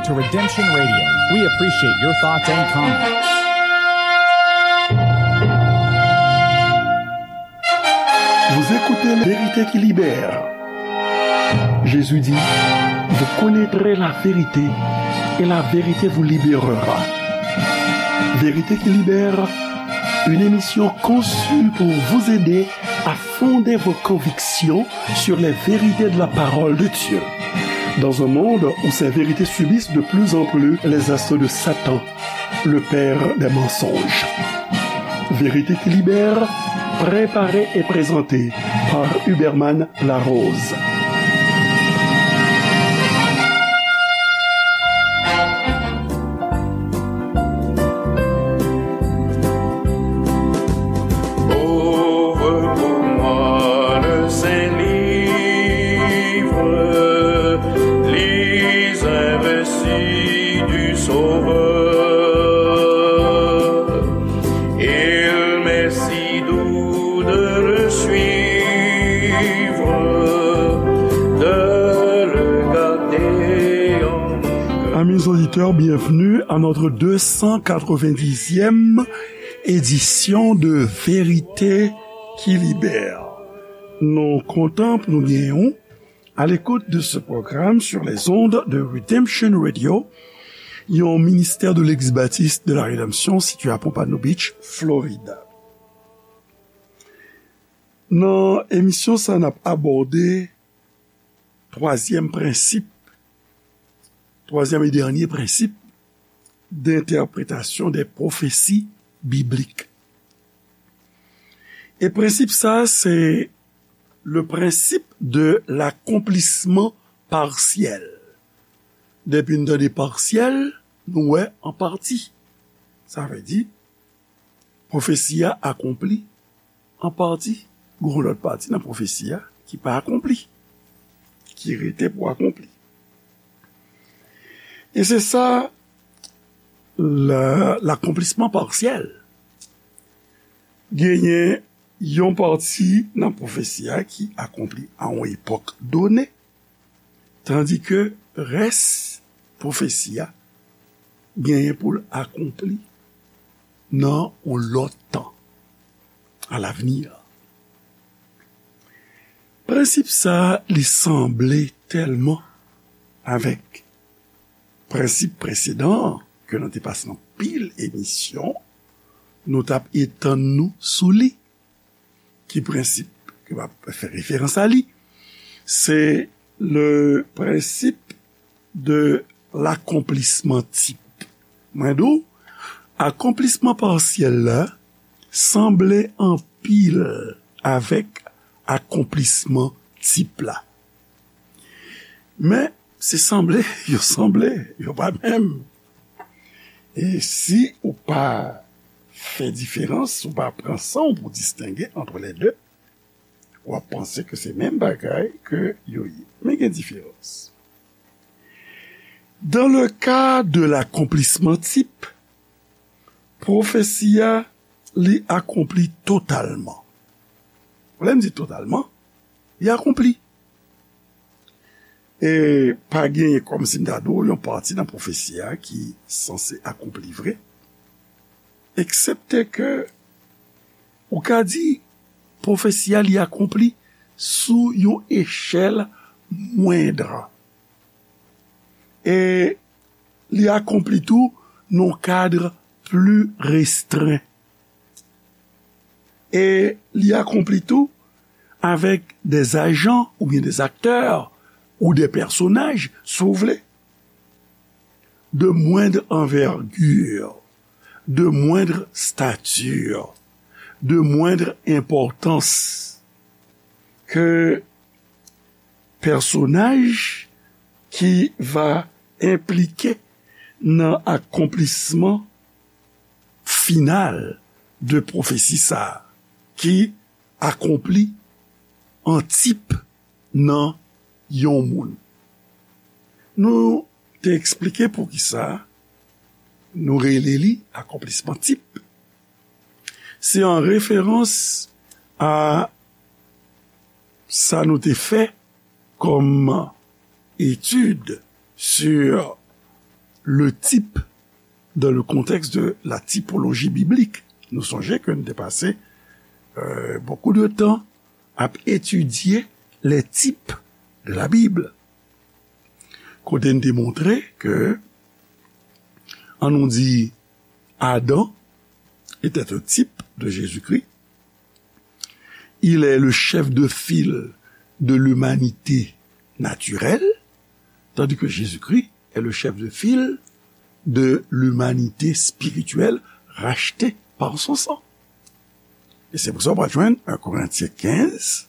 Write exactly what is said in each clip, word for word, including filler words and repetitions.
To Redemption Radio, we appreciate your thoughts and comments. Vous écoutez La vérité qui libère. Jésus dit, vous connaîtrez la vérité et la vérité vous libérera. Vérité qui libère, une émission conçue pour vous aider à fonder vos convictions sur les vérités de la parole de Dieu. Dans un monde où ces vérités subissent de plus en plus les assauts de Satan, le père des mensonges. Vérité qui libère, préparée et présentée par Huberman Larose. Ouvre pour moi le Saint-Livre, lis un récit du Sauveur. Il m'est si doux de le suivre, de le garder en mon cœur. Amis auditeurs, bienvenue à notre deux cent quatre-vingt-dixième édition de Vérité qui Libère. Nou kontan pou nou genyen w à l'écoute de ce programme sur les ondes de Redemption Radio, yon ministè de l'Eglise Baptiste de la Rédemption situé à Pompano Beach, Florida. Nan emisyon sa, n ap abòde twazyèm prensip, twazyèm e dènye prensip d'entèpretasyon dè pwofesi biblik. E prensip sa, se le principe de l'accomplissement partiel. Depi n tande pasyèl, nou wè an pati. Sa vle di, pwofesi a akonpli an pati. Gon lòt pati nan pwofesi a ki pa akonpli, ki rete pou akonpli. E se sa, la, l'accomplissement partiel. Genyen yon pati nan pwofesi a ki akonpli a yon epòk done, tandike rès pwofesi a genyen pou l akonpli nan yon lòt tan, à l'avenir. Prensip sa a, li sanble tèlman avèk prensip presedan an, ke nou te pase anpil emisyon, nou t ap etann nou sou li. Ki prensip ke m ap fè referans a li? Se le principe de l'accomplissement type. Mwen di w, akonplisman pasyèl la sanble anpil avèk akonplisman tip la. Men, se sanble, yo sanble, yo pa menm. E si ou pa fè diferans, ou pa pran san w pou distenge entre les deux, w ap panse ke se menm bagay ke yo ye. Men gen diferans. Dans le cas de l'accomplissement type, pwofesi a, li akonpli totalman. Lè m di totalman, li akonpli. E pa genyen, kòmsi m ta di w, yon pati nan pwofesi a ki sanse akonpli vre, eksepte ke ou ka di pwofesi a li akonpli sou yon echèl mwendr. E li akonpli tou nan yon kad pli restren. E li akonpli tou avèk dè ajan oubyen dè aktè ou dè pèsonaj, si w vle, de moindre envergure, de moindre stature, de moindre importance, ke pèsonaj ki va enplike nan akonplisman final de pwofesi sa a, ki akonpli an tip nan yon moun. Nou te eksplike poukisa nou rele li akonplisman tip. Se an referans a sa nou te fè kòm etid sur le type dans le contexte de la typologie biblique. Nou sonje ke nou te pase euh, beaucoup de temps ap etidye les types de la Bible. Kote n te montre ke, an nou di, Adam était un type de Jésus-Christ. Il est le chef de file de l'humanité naturelle, tandis que Jésus-Christ est le chef de file de l'humanité spirituelle rachetée par son sang. E se pou sa w pral jwenn un Corinthiens quinze,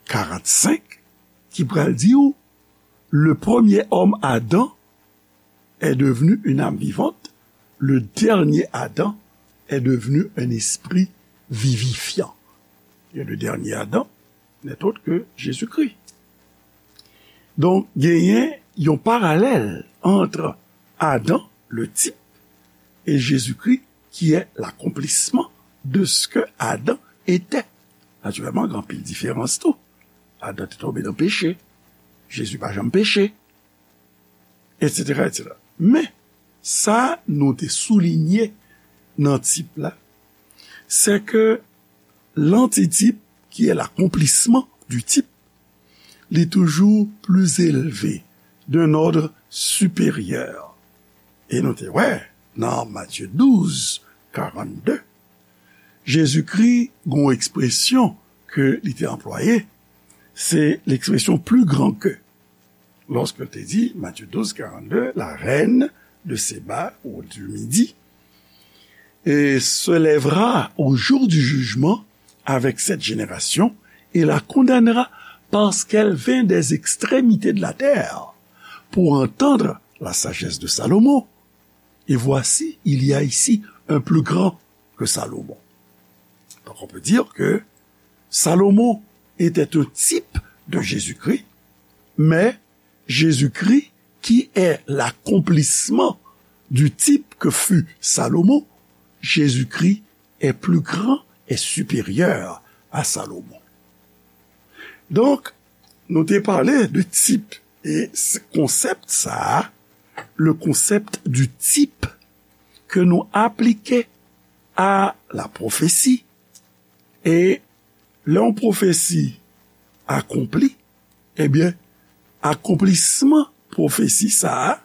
quarante-cinq, ki pral di w, le premier homme Adam est devenu une âme vivante, le dernier Adam est devenu un esprit vivifiant. Et le dernier Adam n'est autre que Jésus-Christ. Donk, genyen yon paralèl entre Adam, le type, et Jésus-Christ, qui est l'accomplissement de ce que Adam était. Natirèlman, gen anpil diferans tou. Adam te tonbe nan peche. Jezi pa janm peche. Etsetera, etsetera. Men, sa nou te soulinye nan tip la, se ke l'antitype, qui est l'accomplissement du type, li toujou pli elve, d'un ordre supérieur. E nou te wè, nan Matye douz, karannde, Jezikri gen yon ekspresyon ke li te anplwaye, se l'expression plus grand que. Lorsqu'il te dit, Matthieu douze, quarante-deux, la reine de Séba ou du Midi, et se lèvera au jour du jugement avec cette génération et la condamnera parce qu'elle vint des extrémités de la terre pour entendre la sagesse de Salomon. Et voici, il y a ici un plus grand que Salomon. Donc on peut dire que Salomon était un type de Jésus-Christ, mais Jésus-Christ, qui est l'accomplissement du type que fut Salomon, Jésus-Christ est plus grand et supérieur à Salomon. Donk, nou te pale de tip, e konsèp sa a, le concept du type, ke nou aplike a la pwofesi, e lè yon pwofesi akonpli, ebyen, akonplisman pwofesi sa a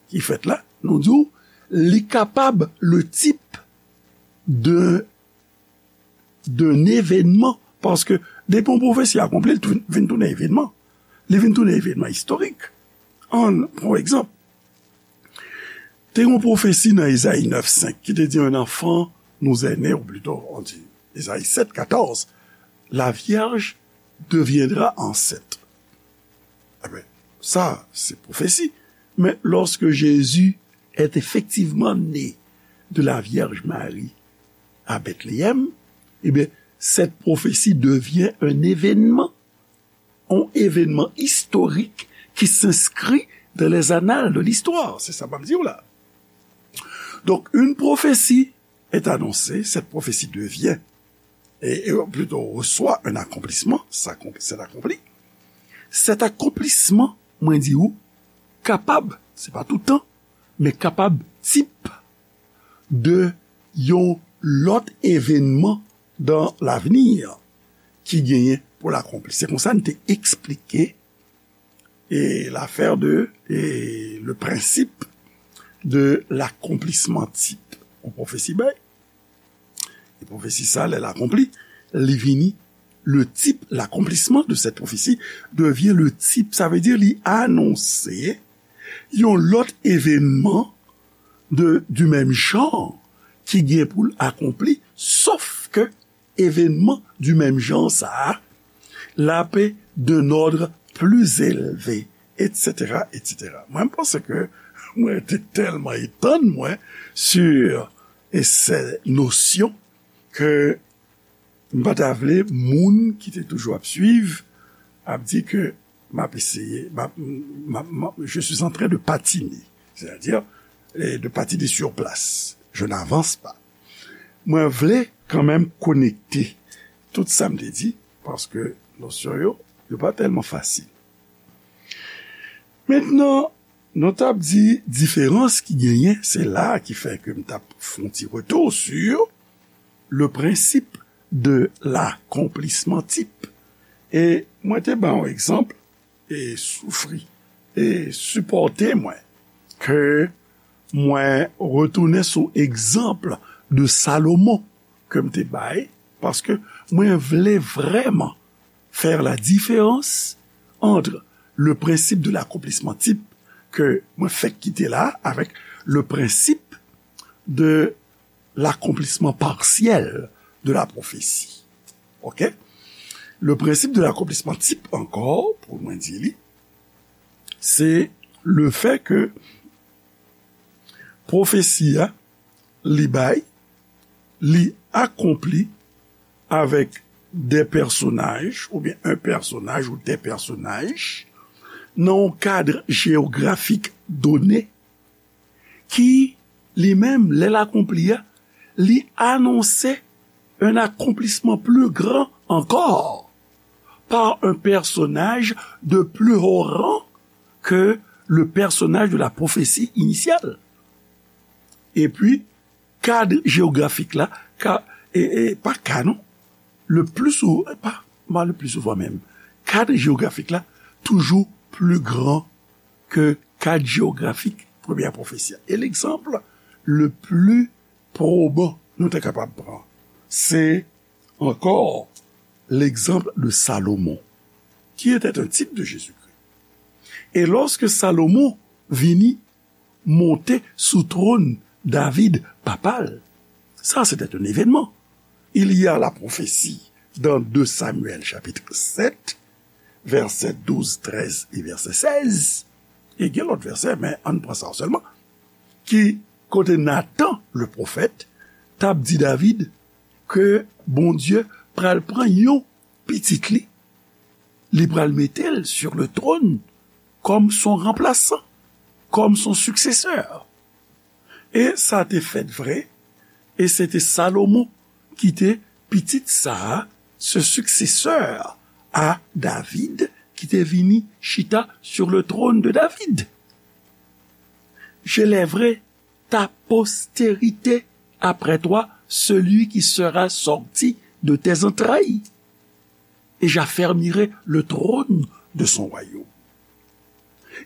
ki fèt la, nou di w, li kapab le type de, d'un événement, paske depi yon pwofesi akonpli, li tou- vin tounen evènman. Li vin tounen evènman istorik. Ann pran yon egzanp. Te yon pwofesi nan Ezayi nèf senk ki te di, un enfant nous est né, ou plutôt, on dit, Ezayi sèt katòz, la vierge deviendra enceinte. Eben, sa, se pwofesi. Men lorsque Jésus est effectivement né de la Vierge Marie à Bethléem, eh bien, cette prophétie devient un événement, un événement historique qui s'inscrit dans les annales de l'histoire. Se sa m ap di w la. Donc, une prophétie est annoncée, cette prophétie devient, et, et plutôt reçoit un accomplissement, ça, c'est accompli. Cet accomplissement, mwen di ou, kapab, se pa tout tan, men kapab tip de yon lòt evènman dans l'avenir ki genyen pou l akonpli. Se konsa n te eksplike e l'affaire de, e le principe de l'accomplissement type. Yon pwofesi bay. E pwofesi sa, lè l akonpli, li vini, le type, l'accomplissement de cette prophétie devient le type. Sa vle di li anonse yon lòt evènman de, du même genre ki gen pou l akonpli, sof ke evènman du même genre sa a, l ap d'un ordre plus élevé, etsetera, etsetera. Mwen, m panse ke mwen te tèlman etann mwen sur ces notions ke m pa ta vle moun ki te toujou ap swiv ap di ke m ap eseye, m ap, m ap, m ap, je suis en train de patiner, c'est-à-dire, eh, de patiner sur place. Je n'avance pas. Mwen vle kanmenm konekte tout sa m te di, paske nosyon yo, yo pa tèlman fasil. Mentnan, Nou t ap di diferans ki genyen, se la ki fè ke m t ap fè yon ti retou sur le principe de l'accomplissement type. E mwen te ba yon egzanp, e soufri, e sipòte mwen, ke mwen retounen sou egzanp de Salomon ke m te bay, paske mwen vle vrèman faire la différence entre le principe de l'accomplissement type ke mwen fèk kite la avèk le principe de l'accomplissement partiel de la prophétie. OK? Le principe de l'accomplissement type ankò, pou mwen di li, se le fait que pwofesi a, li bay, li akonpli avèk de pèsonaj, oubyen un personnage ou des personnages, nan yon kad jewografik done, ki, li menm, lè l akonpli a, li anonse un accomplissement plus grand encore par un personnage de plus haut rang que le personnage de la prophétie initiale. Epi, kad jewografik la, ka, e, e, pa ka non, le pli sou, pa, pa le pli souvan menm, kad jewografik la toujou pli gran ke kad jewografik premyè pwofesi a. E legzanp le pli pwoban nou te kapab pran, se ankò l'exemple de Salomon, qui était un type de Jésus-Christ. Et lorsque Salomon vini monte sou twòn David papa l, sa se te yon evènman. Il y a la prophétie dans deux Samuel chapitre sept, verset douze, treize et verset seize. E gen lòt vèsè, men ann pran sa sèlman. Ki kote Nathan, le prophète, t ap di David ke Bondye pral pran yon pitit li, li pral mete l sur le trône comme son remplaçant, comme son successeur. E sa te fèt vre, e se te Salomon ki te pitit sa a, ce successeur à David, ki te vini chita sur le trône de David. J'élèverai ta postérité après toi, celui qui sera sorti de tes entrailles, et j'affermirai le trône de son royaume.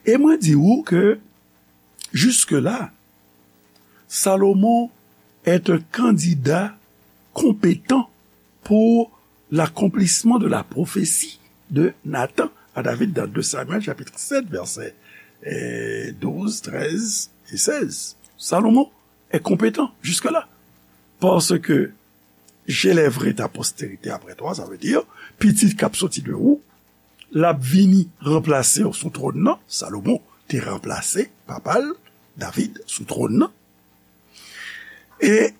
E mwen di ou ke, jusque-là, Salomon est un candidat compétent pour l'accomplissement de la prophétie de Nathan à David dans deux Samuel chapitre sept, verset eh, douze, treize et seize. Salomon est compétent jusque-là. Parce que j'élèverai ta postérité après toi, sa vle di, pitit k ap soti de ou, l ap vini ranplase w sou twòn nan. Salomon te ranplase papa l, David, sou twòn nan. E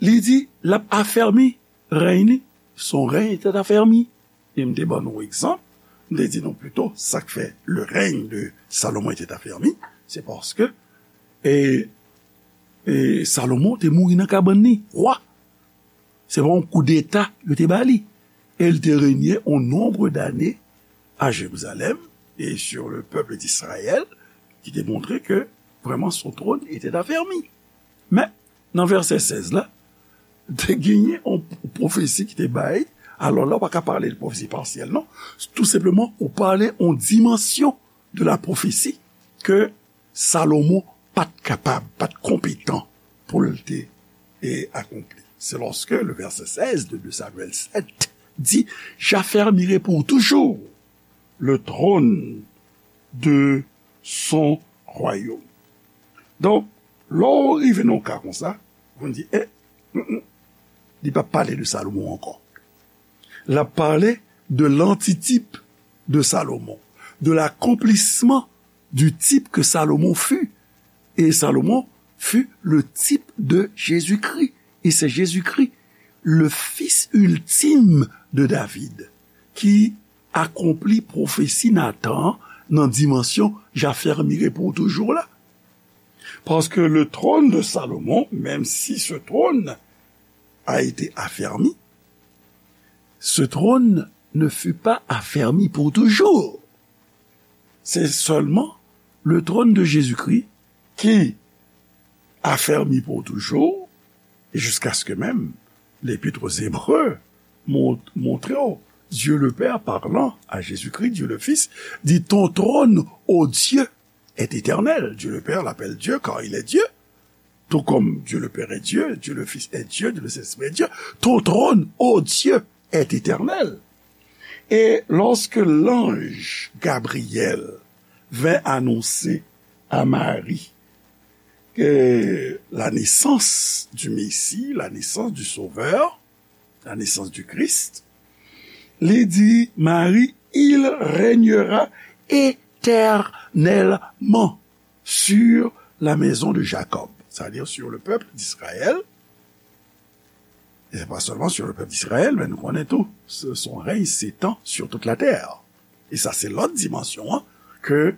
li di, l ap afèmi rèy li, son règne était affermi. E m te ban nou egzanp, m te di nou plito, sa k fè le règne de Salomon était affermi, se paske, e, e Salomon te mouri nan kabann li, wa. Se pa yon koudeta yo te ba li. E l te renye on nonbre dane a Jerizalèm e sur le peuple d'Israël, ki te montre ke vrèman son trône était affermi. Men, nan vèsè sèz la, te genyen yon pwofesi ki te bay. Alò la, ou pa ka pale de pwofesi pasyèl, non. Tou senpleman, ou pale yon dimansyon de la pwofesi ke Salomon pa t kapab, pa t konpetan pou l te, e, akonpli. C'est lorsque le verset seize de deux Samuel sept dit, j'affermirai pour toujours le trône de son royaume. Donk, lè w rive nan yon ka konsa, ou di, eh, mm, mm, li p ap pale de Salomon ankò. L ap pale de l'antitype de Salomon, de l'accomplissement du type que Salomon fut. Et Salomon fut le type de Jésus-Christ. Et c'est Jésus-Christ, le fils ultime de David, ki akonpli pwofesi Nathan nan dimansyon j'affermirai pour toujours la. Parce que le trône de Salomon, même si ce trône a été affermi, ce trône ne fut pas affermi pour toujours. C'est seulement Le trône de Jésus-Christ qui affermi pour toujours, et jusqu'à ce que même l'Épître aux Hébreux mont- montre, Dieu le Père parlant à Jésus-Christ, Dieu le Fils, dit, ton trône, ô Dieu, est éternel. Dieu le Père l'appelle Dieu car il est Dieu. Tout comme Dieu le Père est Dieu, Dieu le Fils est Dieu, Dieu le Saint-Esprit est Dieu, ton trône, ô Dieu, est éternel. Et lorsque l'ange Gabriel vint annoncer à Marie que la naissance du Messie, la naissance du Sauveur, la naissance du Christ, li di Marie, il régnera éternellement sur la maison de Jacob, c'est-à-dire sur le peuple d'Israël. Et c'est pas seulement sur le peuple d'Israël, mais nous connaissons tout. Son règne s'étend sur toute la terre. Et ça, c'est l'autre dimension, hein, que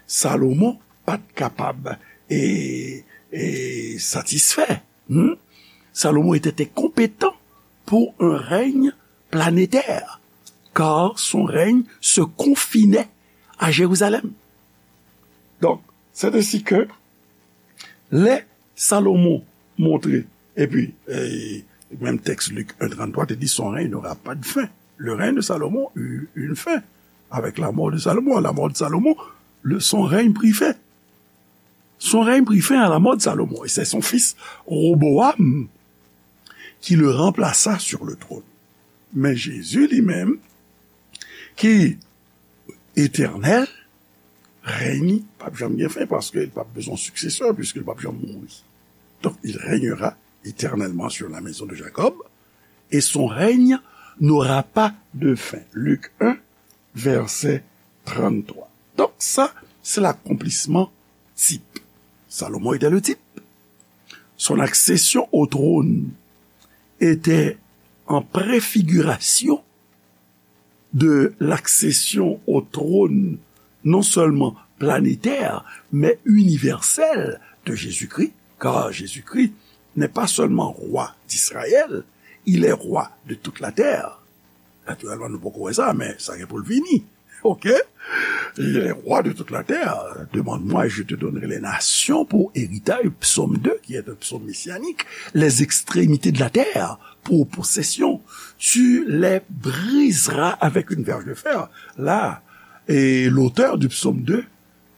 Salomon pas capable et, et satisfait. Hmm? Salomon était incompétent pour un règne planétaire, car son règne se confinait à Jérusalem. Donc, c'est ainsi que lè Salomon montre, epi, e, menm tèks Lik en tranntrwa te di, son règne n'aura pas de fin. Le règne de Salomon eut une fin. Avec la mort de Salomon, à la mort de Salomon, le, son règne prit fin. Son règne prit fin à la mort de Salomon. Et c'est son fils Roboam qui le remplaça sur le trône. Mais Jésus lui-même, qui éternel, règne, p ap janm gen fen, paske li p ap bezwen yon siksesè, puiske li p ap janm mouri. Donc, il régnera éternellement sur la maison de Jacob, et son règne n'aura pas de fin. Lik en, vèsè tranntrwa. Donc, ça, c'est l'accomplissement type. Salomon était le type. Son accession au trône était en préfiguration de l'accession au trône non seulement planétaire, mais universel de Jésus-Christ, car Jésus-Christ n'est pas seulement roi d'Israël, il est roi de toute la terre. Naturellement, nou poko wè sa, men sa gen pou l vini. Ok? Il est roi de toute la terre. Demande-moi, je te donnerai les nations pour héritage. Psaume deux, qui est un psaume messianique. Les extrémités de la terre pour possession. Tu les briseras avec une verge de fer. Là, et l'auteur du psaume deux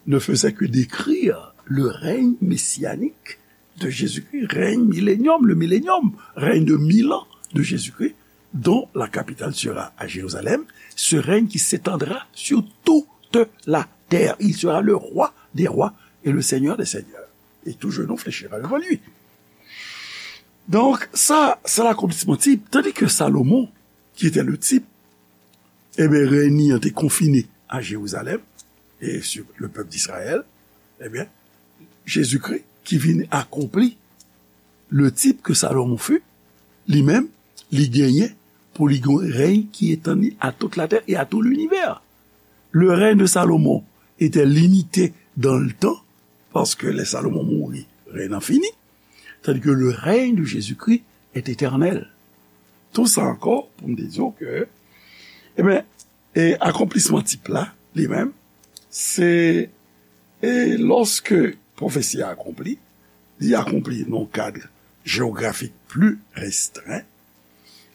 ne faisait que décrire le règne messianique de Jésus-Christ, règne millénium, le millénium, règne de mille ans de Jésus-Christ, dont la capitale sera à Jérusalem, ce règne qui s'étendra sur toute la terre. Il sera le roi des rois et le Seigneur des seigneurs. Et tout genou fléchira devant lui. Donc, ça, c'est l'accomplissement type. Tandis que Salomon, qui était le type, ebyen, rèy li an te konfine a Jerizalèm, e sur le pèp d'Izrayèl, ebyen, Jezikri ki vin akonpli le type que Salomon fut, li menm, li genyen pou li gen yon rèy ki etann li à toute la terre et à tout l'univers. Le règne de Salomon était limité dans le temps, paske lè Salomon mouri, rèy lan fini, tandis que le règne de Jésus-Christ est éternel. Tout sa ankò pou m te di w ke, ebyen, e akonplisman tip la, li menm, se, e lòske pwofesi a akonpli, li akonpli nan yon kad jewografik pli restren,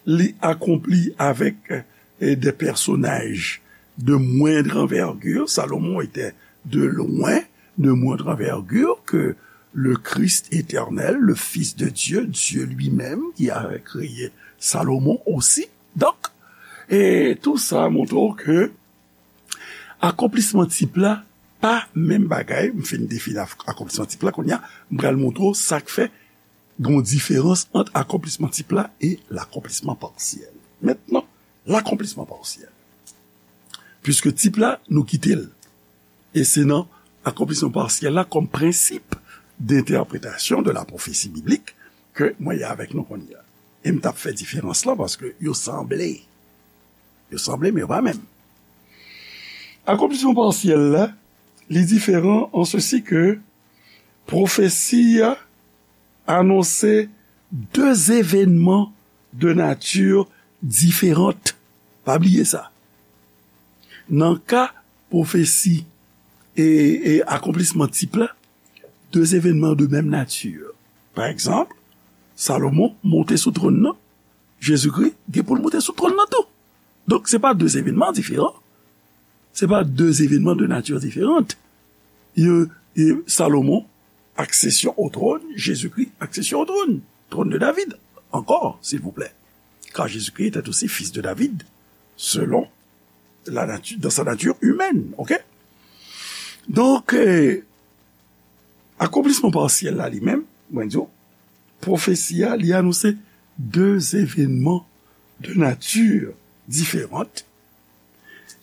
li akonpli avèk, e, des personnages de moindre envergure. Salomon était de loin de moindre envergure que le Christ éternel, le Fils de Dieu, Dieu lui-même, qui avait créé Salomon aussi. Donk, e tou sa montre w ke akonplisman tip la pa menm bagay. M fin defini ak-, akonplisman tip la, kounye a, m pral montre w sa k fè gen yon diferans ant akonplisman tip la e lakonplisman pasyèl. Mentnan, lakonplisman pasyèl. Piske tip la, nou kite l. E se nan akonplisman pasyèl la kòm prensip d'entèpretasyon de la pwofesi biblik ke mwen ye avèk nou kounye a. E m t ap fè diferans lan paske yo sanble. Yo sanble, men yo pa menm. Akonplisman pasyèl la, li diferan an sesi ke pwofesi a anonse de evènman de nati diferan. Pa bliye sa. Nan ka pwofesi e, e akonplisman tip la, de evènman de menm nati. Pa egzanp, Salomon monte sou twòn nan, Jezikri gen pou l monte sou twòn nan tou. Donk, se pa de evènman diferan. Se pa de evènman de nati diferan. E, e Salomon, accession au trône, Jésus-Christ, accession au trône, trône de David, encore, s'il vous plaît. Car Jésus-Christ était aussi fils de David, selon la nature, dans sa nature humaine, ok? Donk, eh, akonplisman pasyèl la li menm, mwen di w, pwofesi a, li anonse de evènman de nati diferan,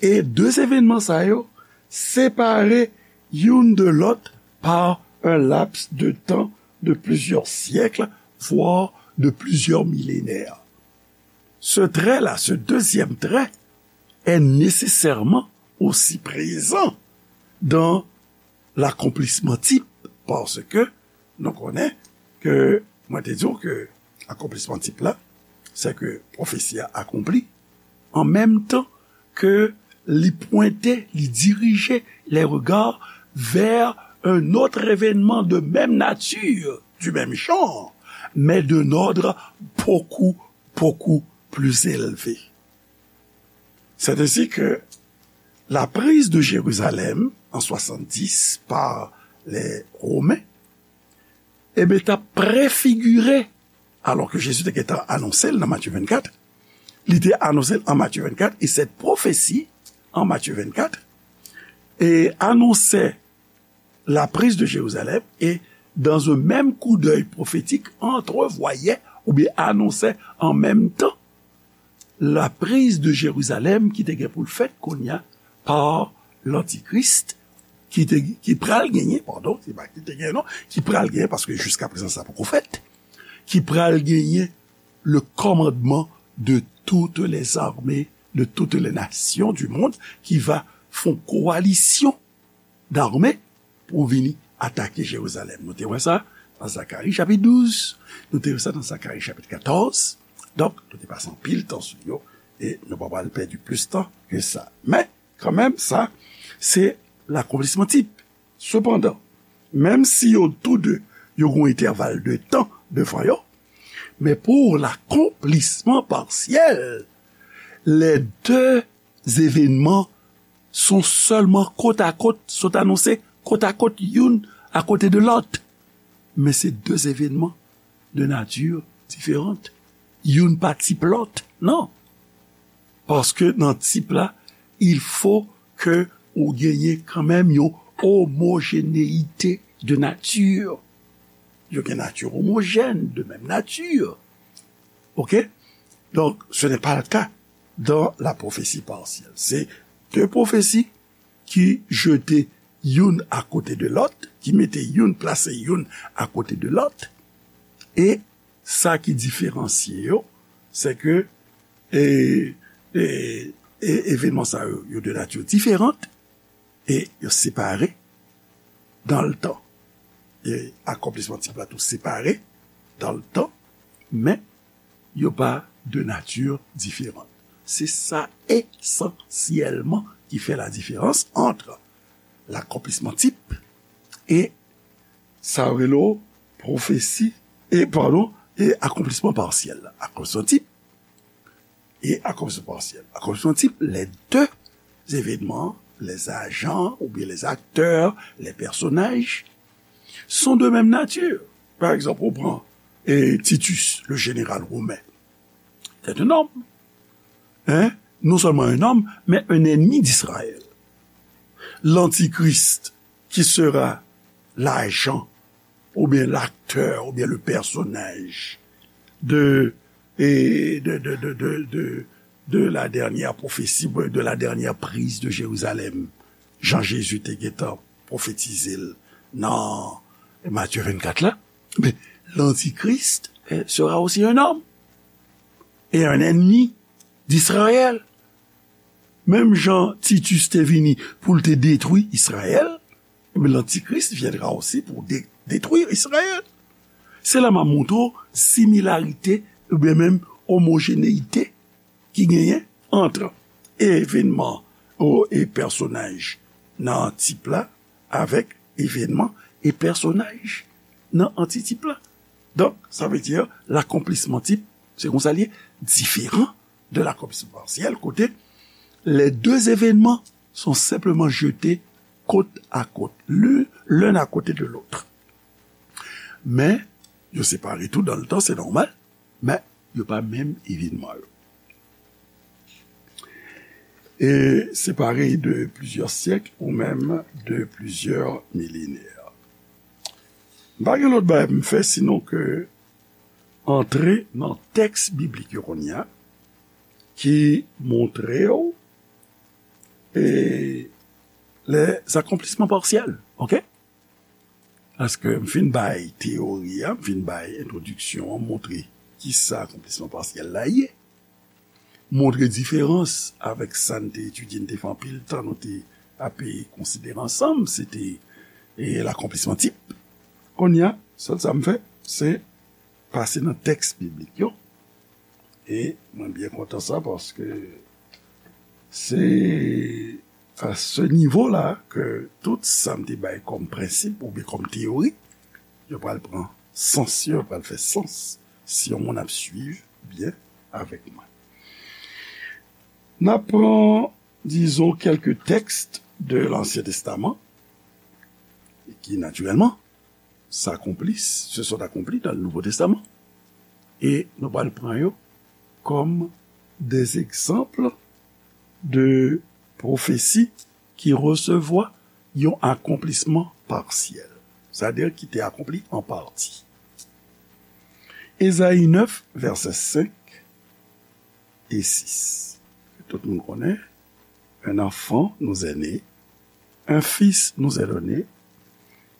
e de evènman sa yo separe youn de lòt par un laps de temps de plusieurs siècles, voire de plusieurs millénaires. Ce trait-là, ce deuxième trait, est nécessairement aussi présent dans l'accomplissement type, paske nou konnen ke, mwen te di w ke akonplisman tip la, se ke pwofesi a akonpli an menm tan ke li pwente, li dirije les regards vers un autre événement de même nature, du même genre, mais d'un ordre beaucoup, beaucoup plus élevé. C'est ainsi que la prise de Jérusalem en soixante-dix par les Romains, e ben, t ap prefigire, alò ke Jezi te gentan anonse l nan Matye vennkat, li te anonse l an Matye vennkat, e cette prophétie en Matthieu vingt-quatre, et annonçait la prise de Jérusalem, et dans un même coup d'œil prophétique, entrevoyait ou bien annonçait en même temps la prise de Jérusalem ki te gen pou l fèt kounye a pa lantikris, ki te, ki pral genyen, padon, se pa ki te genyen non, ki pral genyen, paske jiska prezan sa poko fèt, ki pral genyen le commandement de toutes les armées, de toutes les nations du monde, ki va fè yon kowalisyon dame pou vini atake Jerizalèm. Nou te wè sa nan Zakari chapit douz, nou te wè sa nan Zakari chapit katòz. Donk, nou te pase anpil tan sou yo, e nou pa pral pèdi plis tan ke sa. Men, kanmenm, sa, se lakonplisman tip. Sepandan, menm si yo tou de, yo gen yon entèval de tan devan yo, men pou lakonplisman pasyèl, les deux événements sont seulement côte à côte, sont annoncés côte à côte, youn akote de lòt. Men se de evènman de nati diferan. Youn pa tip lòt, non. Paske nan tip la, il faut que ou genyen kanmenm yon omojénéité de nature. Yo gen nati omojèn, de menm nati. Ok? Donc, ce n'est pas le cas dans la prophétie partielle. Se de pwofesi ki jete youn akote de lòt, ki mete youn, plase youn akote de lòt. E sa ki diferansye yo, se ke, e, e, e, evènman sa yo, yo de nati diferan, e yo separe dan le tan. E akonplisman tip la tou separe dan le tan, men yo pa de nati diferan. Se sa esansyèlman ki fè la diferans ant lakonplisman tip e sa yo rele pwofesi, e, padon, e akonplisman pasyèl. Akonplisman tip e akonplisman pasyèl. Akonplisman tip, les deux événements, les agents ou bien les acteurs, les personnages sont de même nature. Par exemple, on prend, eh, Titus, le général romain. C'est un homme. Hein? Non seulement un homme, mais un ennemi d'Israël. L'antichrist, qui sera l'agent, ou bien l'acteur, ou bien le personnage de, et de, de, de, de, de, de la dernière prophétie, de la dernière prise de Jérusalem. Jan Jezi te gentan pwofetize l nan Matye vennkat la. Men, l'antichrist, eh, sera aussi un homme et un ennemi d'Israël. Menm jan Titus te vini pou l te detwi Izrayèl, eh bien, l'antichrist viendra aussi pour dé-, détruire Israël. Se la m ap montre w similarite oubyen menm omojénéité ki genyen ant evènman o, e pèsonaj nan tip la avèk evènman e pèsonaj nan antitip la. Donk, sa vle di, lakonplisman tip, se konsa l ye, diferan de lakonplisman pasyèl, kote les deux événements sont simplement jetés côte à côte, l'un, l'un à côté de l'autre. Men, yo separe tou dans le temps, c'est normal, men yo pa menm evènman yo. E separe de plizyè syèk ou menm de plizyè milenè. M pa gen lòt bagay pou m fè sinon ke antre nan tèks biblik yo kounye a, ki montre w e les accomplissements partiels, ok? Paske m fin bay teyori a, m fin bay entwodiksyon an, montre kisa akonplisman pasyèl la ye. Montre diferans avèk sa n te etidye, n te fè anpil tan, nou te ape konsidere ansanm, se te e, lakonplisman tip. Kounye a, sèl sa m fè, se pase nan tèks biblik yo. E mwen byen kontan sa, paske se a se nivo la ke tout sa m te bay kòm prensip oubyen kòm teyori, yo pral pran sans yo, yo pral fè sans si yon moun ap swiv byen avèk mwen. N ap pran, dizon, kèlke tèks de Lansyen Testaman ki, natirèlman, s'accomplissent, se sont accomplis dans le Nouveau Testament. E nou pral pran yo kòm des exemples de pwofesi ki resevwa yon akonplisman pasyèl, sètadi ki te akonpli an pati. Ezayi nèf, vèsè senk e sis. Tout moun konnen, un enfant nous est né, un fils nous est donné,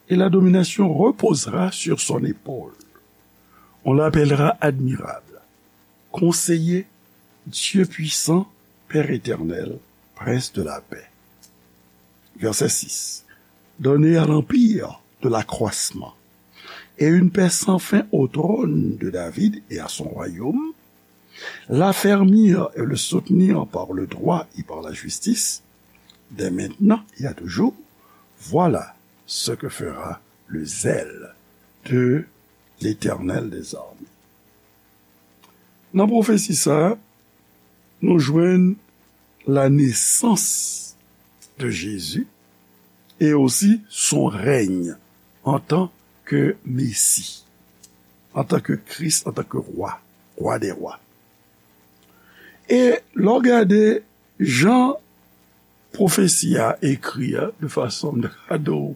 et la domination reposera sur son épaule. On l'appellera admirable, conseiller, Dieu puissant, Père éternel, prince de la paix. Verset six. Donner à l'empire de l'accroissement et une paix sans fin au trône de David et à son royaume, l'affermir et le soutenir par le droit et par la justice, dès maintenant et à toujours, voilà ce que fera le zèle de l'Éternel des armées. Nan pwofesi sa a, nou jwenn la naissance de Jésus et aussi son règne en tant que Messie, en tant que Christ, en tant que roi, roi des rois. E lè w gade jan pwofesi a ekri a, de fason m ta ka di w,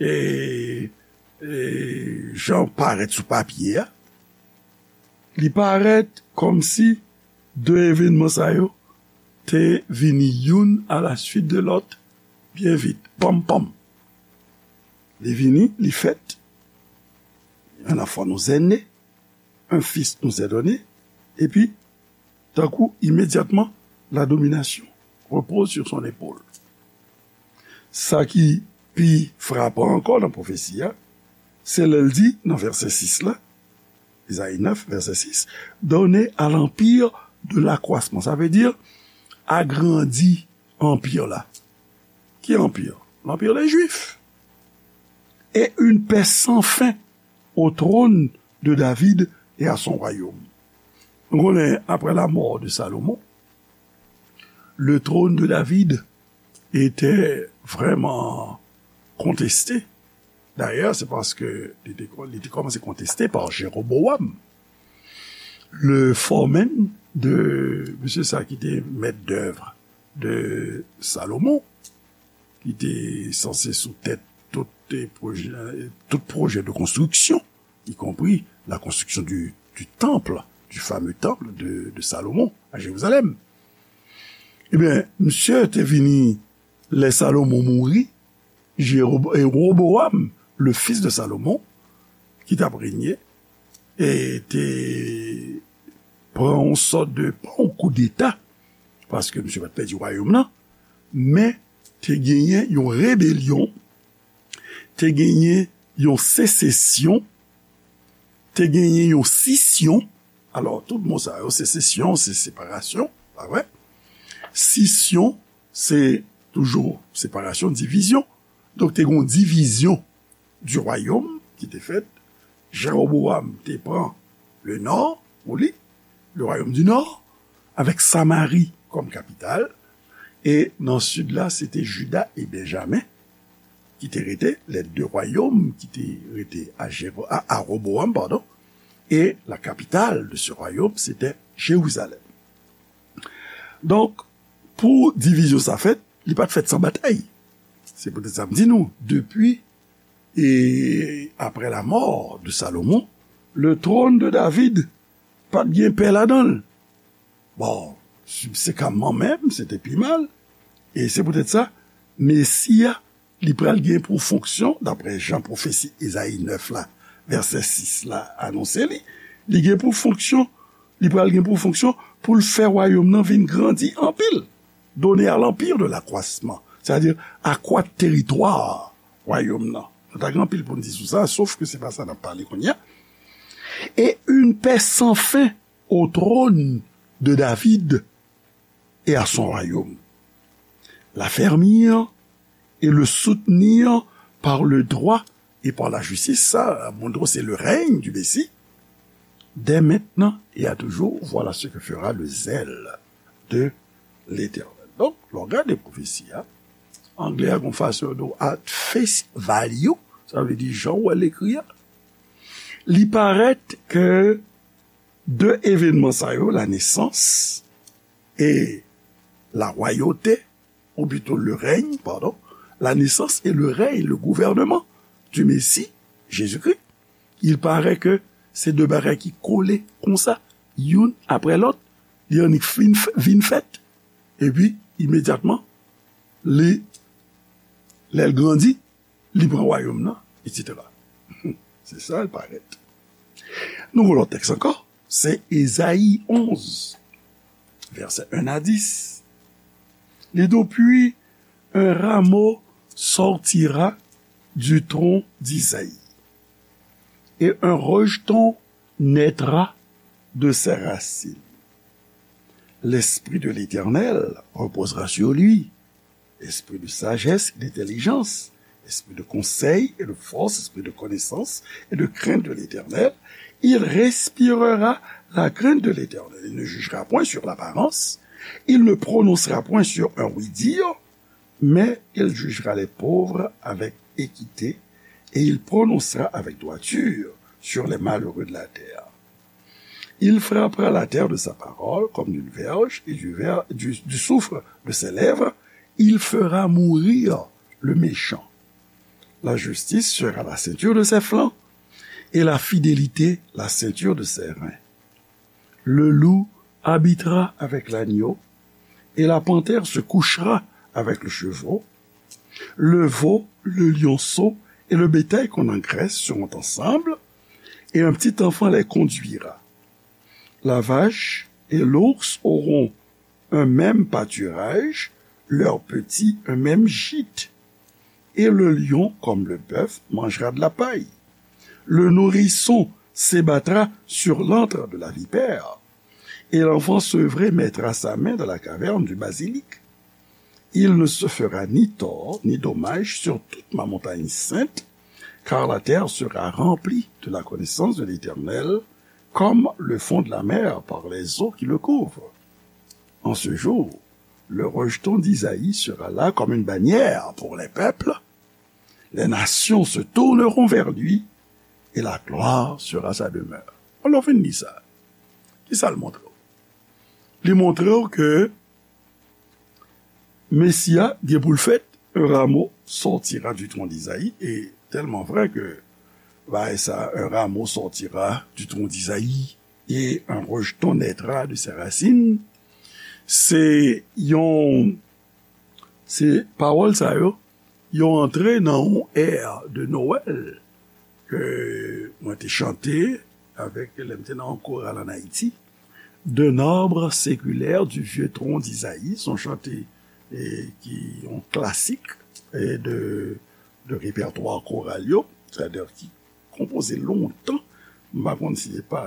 e, e jan l parèt sou papye a, li parèt kòmsi de evènman sa yo te vini youn a la suit de lòt, byen vit, panm, panm. Li vini, li fèt, un enfant nous est né, un fils nous est donné, epi, tankou, imedyatman, la domination repose sur son épaule. Sa ki pi frapan ankò nan pwofesi a, se lè l di, nan vèsè sis la, Ezayi nèf, vèsè sis, donner à l'empire de l'accroissement. Sa vle di, agrandi anpi la. Ki anpi? L'empire des Juifs. Et une paix sans fin au trône de David et à son royaume. Nou konnen, après la mort de Salomon, le trône de David était vraiment contesté. D'ailleurs, c'est parce que li te, li te kòmanse konteste pa Jéroboam, le foreman de, mesye sa ki te mèt dèv de Salomon, ki te sanse sou tèt tout pwojè, tout pwojè de konstriksyon, y compris la construction du, du temple, du fameux temple de, de Salomon à Jérusalem. Ebyen, misye te vini lè Salomon mouri, Jérob-, e Roboam, le fils de Salomon, ki t ap renye, e te pran yon sòt de, pa yon koudeta, paske misye pa t pèdi wayòm nan, men te genyen yon rebelyon, te genyen yon sesesyon, te genyen yon sisyon. Alò, tout mo sa yo, sesesyon, se separasyon, pa vre? Sisyon, se toujou separasyon, divizyon. Donk, te gen yon divizyon du royaume ki te fèt. Jewobowam te pran le nò pou li, le royaume du nord, avèk Samari kòm kapital. E nan sid la, se te Jida e Benjamen ki te rete, les deux royaumes ki te rete a, Jero- a, a Wobowam, padon, e la capitale de ce royaume, c'était Jérusalem. Donk, pou divizyon sa fèt, li pa t fèt san batay. Se poutèt sa m di nou, depi e après la mort de Salomon, le trône de David pa t gen pè ladan l. Bon, sibsekanman menm, se te pi mal. E se poutèt sa, Mesi a, li pral gen pou fonksyon, daprè jan pwofesi Ezayi nèf la, vèsè sis la, anonse li, li gen pou fonksyon, li pral gen pou fonksyon pou l fè wayòm nan vin grandi anpil. Donner à l'empire de l'accroissement, c'est-à-dire akwat teritwa wayòm nan. Nou ta gen anpil pou n di sou sa, sof ke se pa sa n ap pale kounye a. Et une paix sans fin au trône de David et à son royaume. L'affermir et le soutenir par le droit et par la justice, sa montre se le règne du Messie, dès maintenant et à toujours, voilà ce que fera le zèle de l'Éternel. Donk, lè w gade pwofesi a, anglè a gon fason yo di w at face value, sa vle di jan w wè l ekri a. Li parèt ke de evènman sa yo, la nesans e la royauté, ou plito le règne, pardon, la naissance et le règne, le gouvernement du Messie, Jésus-Christ, il paraît que se de bagay ki kole konsa, youn apre lòt, li annik fin, vin fèt, epi imedyatman, li, lè l grandi, li pran wayòm nan, etsetera. Se sa l parèt. Nou gon lòt tèks ankò, se Ezayi onz, vèsè en a dis. Li di w, puis un rameau sortira du tronc d'Isaïe, et un rejeton naîtra de ses racines. L'Esprit de l'Éternel reposera sur lui, esprit de sagesse et d'intelligence, esprit de conseil et de force, esprit de connaissance et de crainte de l'Éternel. Il respirera la crainte de l'Éternel. Il ne jugera point sur l'apparence. Il ne prononcera point sur un oui-dire, mais il jugera les pauvres avec équité et il prononcera avec droiture sur les malheureux de la terre. Il frappera la terre de sa parole comme d'une verge et du, ver, du, du souffle de ses lèvres, il fera mourir le méchant. La justice sera la ceinture de ses flancs et la fidélité la ceinture de ses reins. Le loup habitera avec l'agneau et la panthère se couchera avec le chevreau. Le veau, le lionceau et le bétail qu'on engraisse seront ensemble, et un petit enfant les conduira. La vache et l'ours auront un même pâturage, leurs petits un même gîte, et le lion, comme le bœuf, mangera de la paille. Le nourrisson s'ébattra sur l'antre de la vipère, et l'enfant sevré mettra sa main dans la caverne du basilic. Il ne se fera ni tort ni dommage sur toute ma montagne sainte, car la terre sera remplie de la connaissance de l'Éternel, comme le fond de la mer par les eaux qui le couvrent. En ce jour, le rejeton d'Isaïe sera là comme une bannière pour les peuples. Les nations se tourneront vers lui et la gloire sera sa demeure. Alò, fin li sa. Kisa l montre w? Li montre w ke Mesi a gen pou l fèt, un rameau sortira du tronc d'Isaïe, e tèlman vrè ke bagay sa, un rameau sortira du tronc d'Isaïe et un rejeton naîtra de ses racines, se yon, se pawòl sa yo, yo antre nan yon è de Nwèl ke mwen te chante avèk, lè m te nan yon koral ann Ayiti, d'un arbre séculaire du vieux tronc d'Isaïe, se yon chante, e, ki yon klasik, e, de, de repètwa koral yo, sètadi ki konpoze lontan, m pa konn si se pa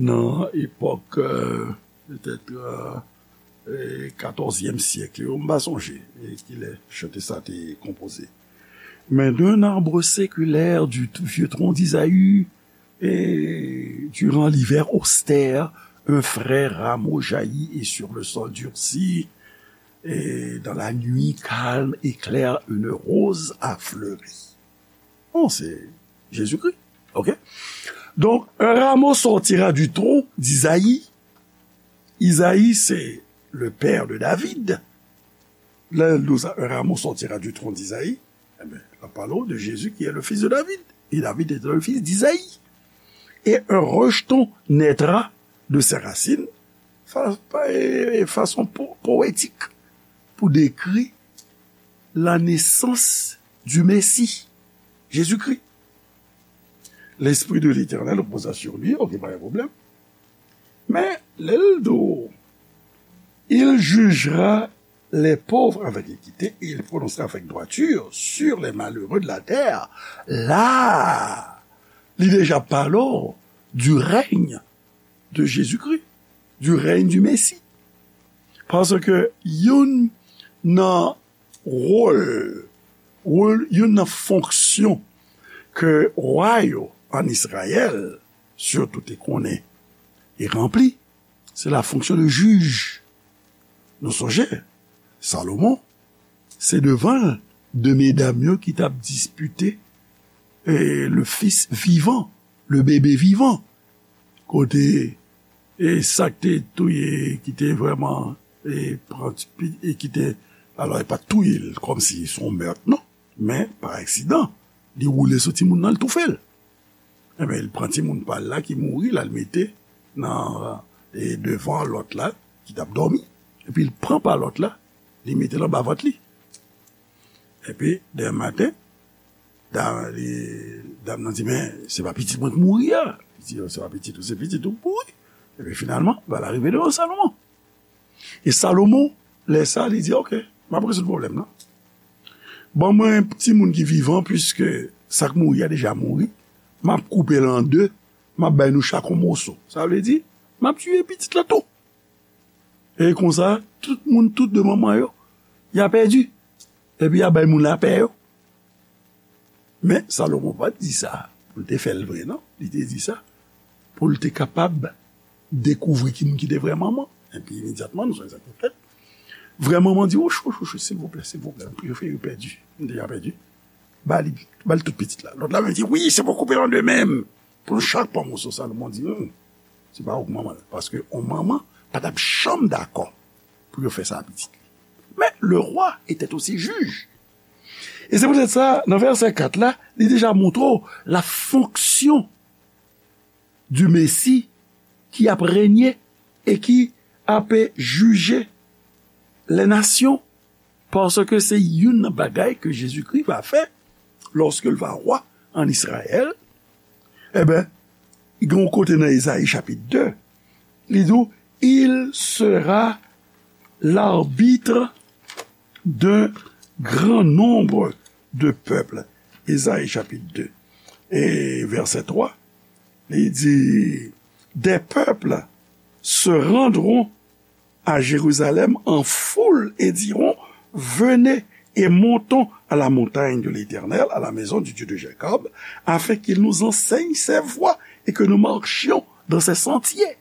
nan epòk, e, petèt, e, katòzyèm syèk yo, m pa sonje kilè chante sa te konpoze. Mais d'un arbre séculaire du vieux tronc d'Isaïe, et durant l'hiver austère, un frais rameau jaillit et sur le sol durci, et dans la nuit calme et claire, une rose a fleuri. Bon, c'est Jésus-Christ. OK? Donc, un rameau sortira du tronc d'Isaïe. Isaïe, c'est le père de David. Là, nous, un rameau sortira du tronc d'Isaïe. Eh bien, la parole de Jésus qui est le fils de David. Et David était le fils d'Isaïe. Et un rejeton naîtra de ses racines. Fa- pa- e- e- façon po- poétique pour décrire la naissance du Messie, Jésus-Christ. L'Esprit de l'Éternel reposa sur lui, ok, pa gen pwoblèm. Men, lè l di w, il jugera les pauvres avec équité et il prononcera avec droiture sur les malheureux de la terre. La, li deja pale w du règne de Jésus-Christ, du règne du Messie. Paske youn nan wòl, wòl, youn nan fonksyon ke wa yo an Izrayèl, sitou te konnen e ranpli, se la fonksyon de jij. Nou sonje, Salomon, se devan l de medam yo ki t ap dispite, eh, le fils vivant, le bébé vivant. Kote, e sa k te touye, ki te vrèman, e pran ti pi- e ki te, alò, e pa t touye l kòmsi se yon mèt, non, men pa aksidan, li woule sou timoun nan, li toufe l. Enben, li pran timoun pa l la ki mouri, l al mete nan, e devan lòt la, ki t ap dòmi. Epi l pran pa lòt la, li mete l anba vant li. Epi, demen maten, dam, li, dam nan di, men, se pa pitit mwen ki mouri a. Li di, se pa pitit ou, se pitit ou ki mouri. Epi, finalman, bagay la rive devan Salomon. E Salomon, lè sa, li di, ok, m ap rezoud pwoblèm nan. Ban mwen timoun ki vivan, piske sa k mouri a deja mouri. M ap koupe l an de, m ap bay nou chak yon moso. Sa vle di, m ap tiye pitit la tou. E konsa, tout moun, tout de manman yo, y a pèdi. Epi y a bay moun lapè yo. Men, Salomon pa t di sa pou l te fè l vre, non. Li te di sa pou l te kapab dekouvri ki moun ki te vrè manman. Epi, imedyatman, nou sonje sa k te fèt. Vrè manman di, wouch, wouch, wouch, silvouplè, silvouplè, m prefere pèdi. M deja pèdi. Ba li, ba li tout pitit la. Lòt la menm di, wi, se pou koupe l an de menm. Pou nou chak pran moso. Salomon di, hmm, se pa ou k manman l. Paske yon manman pa t ap janm dakò pou yo fè sa a pitit li. Men, le roi était aussi juge. E se poutèt sa, nan vèsè kat la, li deja montre w la fonksyon du Messie ki ap renye e ki ap jije les nations, paske se youn nan bagay ke Jezikri va fè lòske l va wa an Izrayèl. Enben, gen yon kote nan Ezayi chapit de, li di w, il sera l'arbitre d'un grand nombre de peuples. Ezayi chapit de e vèsè twa, li di, des peuples se rendront à Jérusalem en foule et diront, venez et montons à la montagne de l'Éternel, à la maison du Dieu de Jacob, afin qu'il nous enseigne ses voies et que nous marchions dans ses sentiers.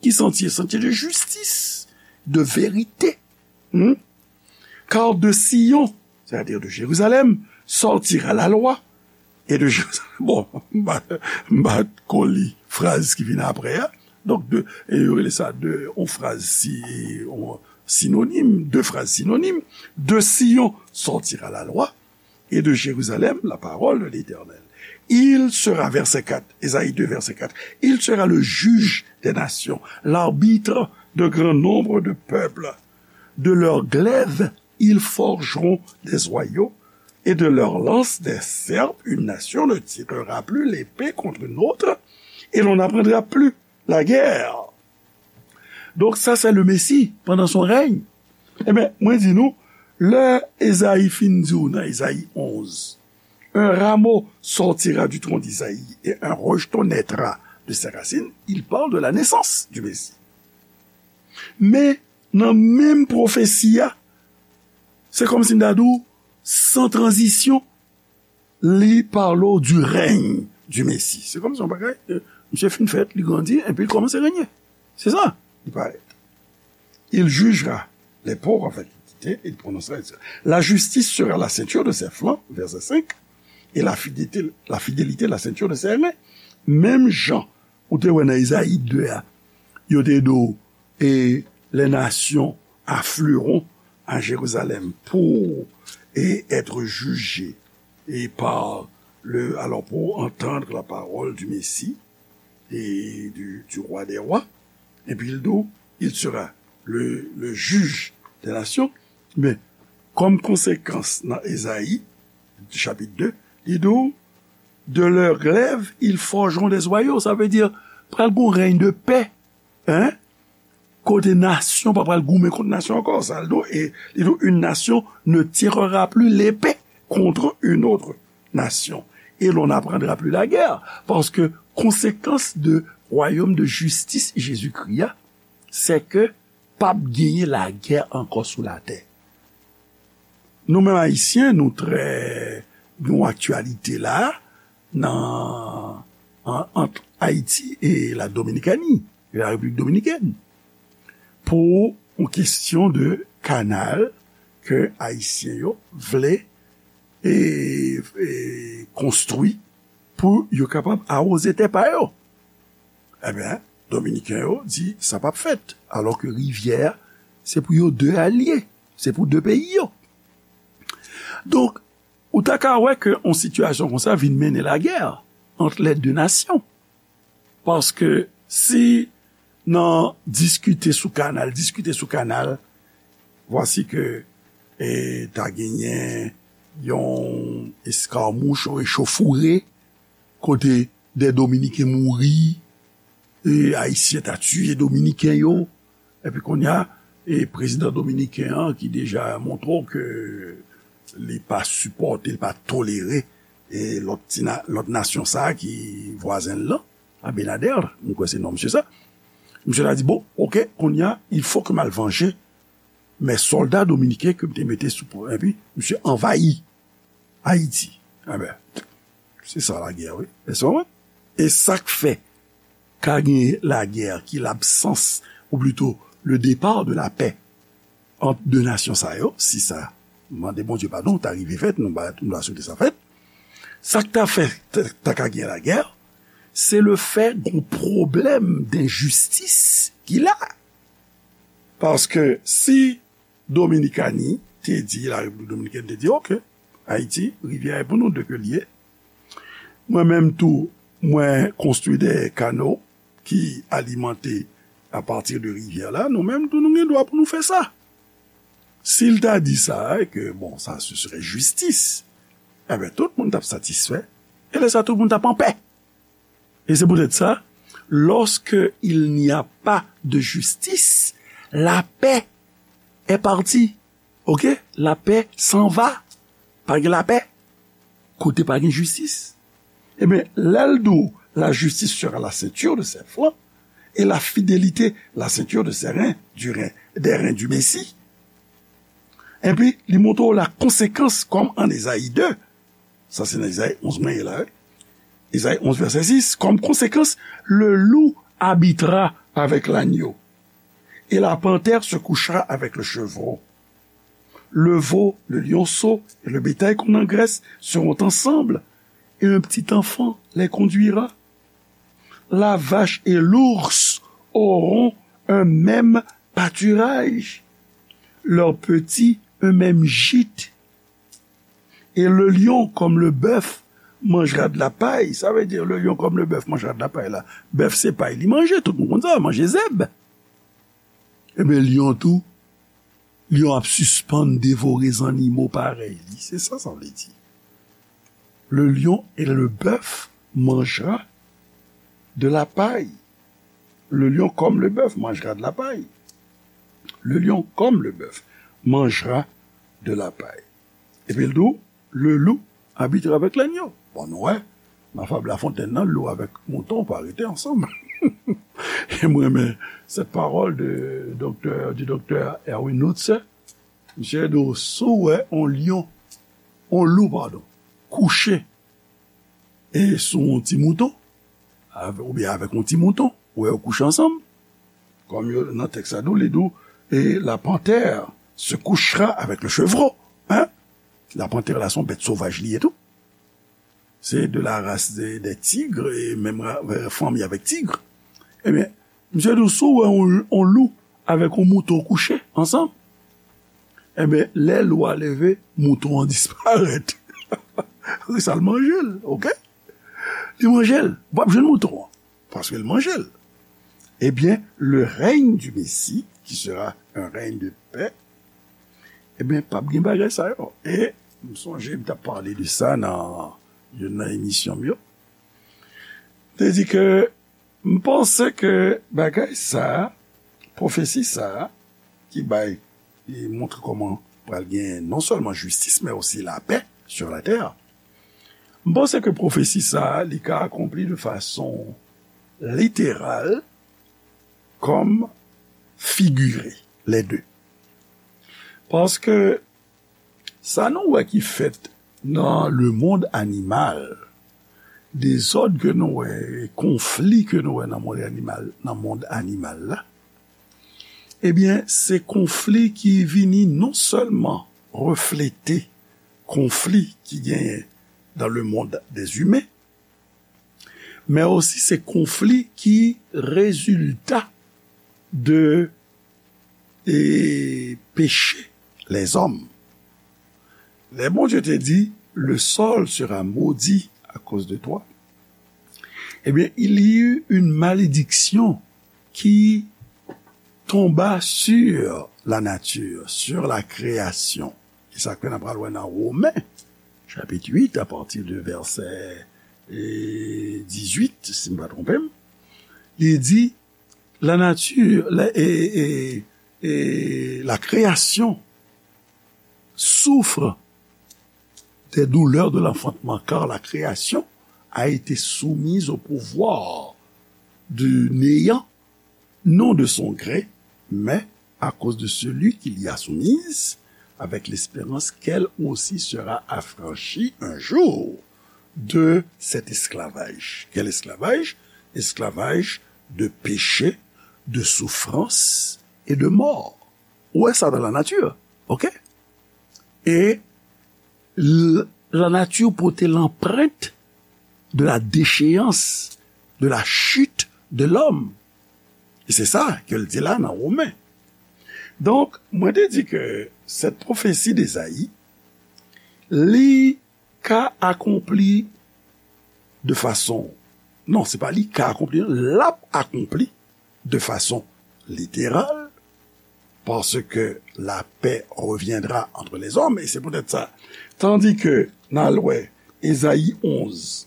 Ki santye? Santye de jistis, de verite. Hmm? Car de Sion, c'est-à-dire de Jérusalem, sortira la loi. Et de Jérusalem, bon, m pa, m pa ko li fraz ki vin apre a. Donk, de, e yo rele sa de, yon fraz si, yon sinonim, de fraz sinonim. De Sion sortira la loi, et de Jérusalem la parole de l'Éternel. Il sera, verset quatre, Ésaïe deux, verset quatre, il sera le juge des nations, l'arbitre de grand nombre de peuples. De leurs glaives, ils forgeront des joyaux, et de leurs lances des serpes. Une nation ne tirera plus l'épée contre une autre, et l'on n'apprendra plus la guerre. Donc ça, c'est le Messie pendant son règne. Enben, mwen di nou, lè Ezayi fin di w nan Ezayi onz, un rameau sortira du tronc d'Isaïe et un rejeton naîtra de ses racines, il parle de la naissance du Messie. Men, Nan menm pwofesi a, se kòmsi m ta di w, san tranzisyon, li pale w du règne du Messie. Se kòmsi yon bagay, euh, misye fin fèt, li grandi, epi li kòmanse renye. Se sa, li parèt. Il jugera les pauvres avec équité, il prononcera. La justice sera la ceinture de ses flancs, verset cinq, et la fidélité, la fidélité la ceinture de ses reins. Menm jan ou te wè nan Ezayi de a, yo te di w, et les nations afflueront à Jérusalem pour et être jugées et par le, alors pour entendre la parole du Messie et du, du roi des rois. Epi l di w, il sera le, le juge des nations. Men, kòm konsekans nan Ezayi, chapit de, li di w, de leurs glaives, ils forgeront des joyaux. Sa vle di, pral gon règne de paix. Hein? Kote nasyon pa pral goumen kont nasyon ankò. Sa l di w, e li di w, une nation ne tirera plus l'épée contre une autre nation. Et l'on n'apprendra plus la guerre. Paske konsekans de wayòm de jistis Jezikri a, se ke p ap genyen lagè ankò sou latè. Nou menm Ayisyen, nou trè, nou aktyalite la, nan, an, ant Ayiti e la Dominikani, e la Repiblik Dominikèn, pou yon kesyon de kanal ke Ayisyen yo vle e, e konstwi pou yo kapab awoze tè pa yo. Ebyen, Dominiken yo di sa p ap fèt, alò ke rivyè a, se pou yo de a l ye, se pou de peyi yo. Donk, ou ta ka wè ke yon sitiyasyon konsa vin mennen lagè ant les deux nations. Paske si nan diskite sou kanal, diskite sou kanal, vwasi ke, e, ta genyen yon eskamouch, yon echauffourée, kote de Dominiken mouri, e, Ayisyen ta tiye Dominiken yo, epi kounye a, e, prezidan dominiken an ki deja montre w ke li pa sipòte, li pa tolere, e, lòt ti na-, lòt nasyon sa a ki vwazen l lan, Abinader, m kwè se non misye sa. Misye ta di, bon, oke, kounye a, il faut que m al vanje mes soldats dominicains ke m te mete sou, epi misye anvayi Ayiti. Enben, se sa lagè, wi. Èske w konprann? E sa k fè ka gen lagè ki labsans, ou plito le départ de la paix ant de nasyon sa yo, si sa, mande Bondye padon, ta rive fèt, nou ba, nou ta swete sa fèt. Sa k ta fè, ta, ta ka gen lagè, se le fè gon pwoblèm denjistis ki la. Paske si Dominikani te di, la Repiblik Dominikèn te di, oke, Ayiti, rivyè a pou nou, de ke l ye. Mwen menm tou, mwen konstwi de kano ki alimante apati de rivyè la, nou menm tou, nou gen dwa pou nou fè sa. Si l ta di sa, e ke, bon, sa, ce serait justice, enben, tout moun t ap satisfè, e lè sa, tout moun t ap anpè. Et c'est peut-être ça, lorsque il n'y a pas de justice, la paix est partie. Ok? La paix s'en va. Pa gen lapè. Kote pa gen jistis. Ebyen, lè l di w, la justice sera la ceinture de ses flancs, et la fidélité la ceinture de ses reins, du rein, des reins du Messie. Epi, li montre w la konsekans, kòm an Ezayi de, sa se nan Ezayi onz mwen ye la, wi. Ezayi onz, vèsè sis, comme conséquence, le loup habitera avec l'agneau, et la panthère se couchera avec le chevreau. Le veau, le lionceau et le bétail qu'on engraisse seront ensemble, et un petit enfant les conduira. La vache et l'ours auront un même pâturage, leurs petits un même gîte. Et le lion comme le bœuf mangera de la paille. Sa vle di, le lion comme le bœuf mangera de la paille la. Bèf se pay li manje, tout moun konn sa, manje zèb. Ebyen, lyon tou, lyon ap sispann devore zannimo parèy li. Se sa sa vle di. Le lion et le bœuf mangera de la paille. Le lion comme le bœuf mangera de la paille. Le lion comme le bœuf mangera de la paille. Epi l di w, le loup habitera avec l'agneau. Bon, nou wè, nan fab La Fontaine nan, lou avèk mouton pa rete ansanm. E mwen renmen cette parole de docteur, du docteur Erwin Lutzer. Misye di w, si w wè yon lyon, yon lou, padon, kouche e sou yon ti mouton, avè-, oubyen avèk yon ti mouton, ou wè yo kouche ansanm, kòm yo nan tèks la, li di w, et la panthère se couchera avec le chevreau. Hein? La panthère la, se yon bèt sovaj li ye tou. Se de la race des, des tigres, e menm ra-, euh, fanmi avèk tig. Ebyen, misye di w, si w wè yon, yon lou avèk yon mouton kouche ansanm, ebyen, lè lou a leve, mouton an disparèt. Sa l manje l, oke? Li manje l. Ou p ap jwenn mouton an, paske l manje l. Ebyen, le règne du Messie, qui sera un règne de paix, ebyen, p ap gen bagay sa yo. E m sonje m t ap pale de sa nan youn nan emisyon m yo. Te di ke m panse ke bagay sa a, pwofesi sa a, ki bay, e montre kòman pral gen non sèlman jistis, men osi lapè sur la terre. M panse ke pwofesi sa a, li ka akonpli de fason literal kòm figire, les deux. Paske sa nou wè ki fèt nan le monde animal, dezòd ke nou wè, konfli ke nou wè nan mond animal, nan mond animal la, ebyen, se konfli ki vini non sèlman reflete konfli ki genyen dans le monde des humains, men osi se konfli ki rezilta de, e, peche lèzòm. Lè Bondye te di, le sol sera maudit à cause de toi, ebyen, il y eut une malédiction qui tomba sur la nature, sur la création. E sa ke n ap pral wè nan Women, chapit uit, apati de vèsè, e, dizuit, si m pa twonpe m, li di, la nature, la, e, e, e, la création souffre des douleurs de l'enfantement, car la création a été soumise au pouvoir du néant, non de son gré, mais à cause de celui qui l'y a soumise, avec l'espérance qu'elle aussi sera affranchie un jour de cet esclavage. Quel esclavage? Esclavage de péché, de souffrance et de mort. Ou wè sa dans la nature, oke? E l-, la nature pote l'empreinte de la déchéance, de la chute de l'homme. E se sa ke l di la nan Women. Donk, mwen te di ke cette prophétie d'Ésaïe, li ka akonpli de fason, non, se pa li ka akonpli, l ap akonpli de fason literal, parce que la paix reviendra entre les hommes, et c'est peut-être ça. Tandis que n al wè Ezayi onz,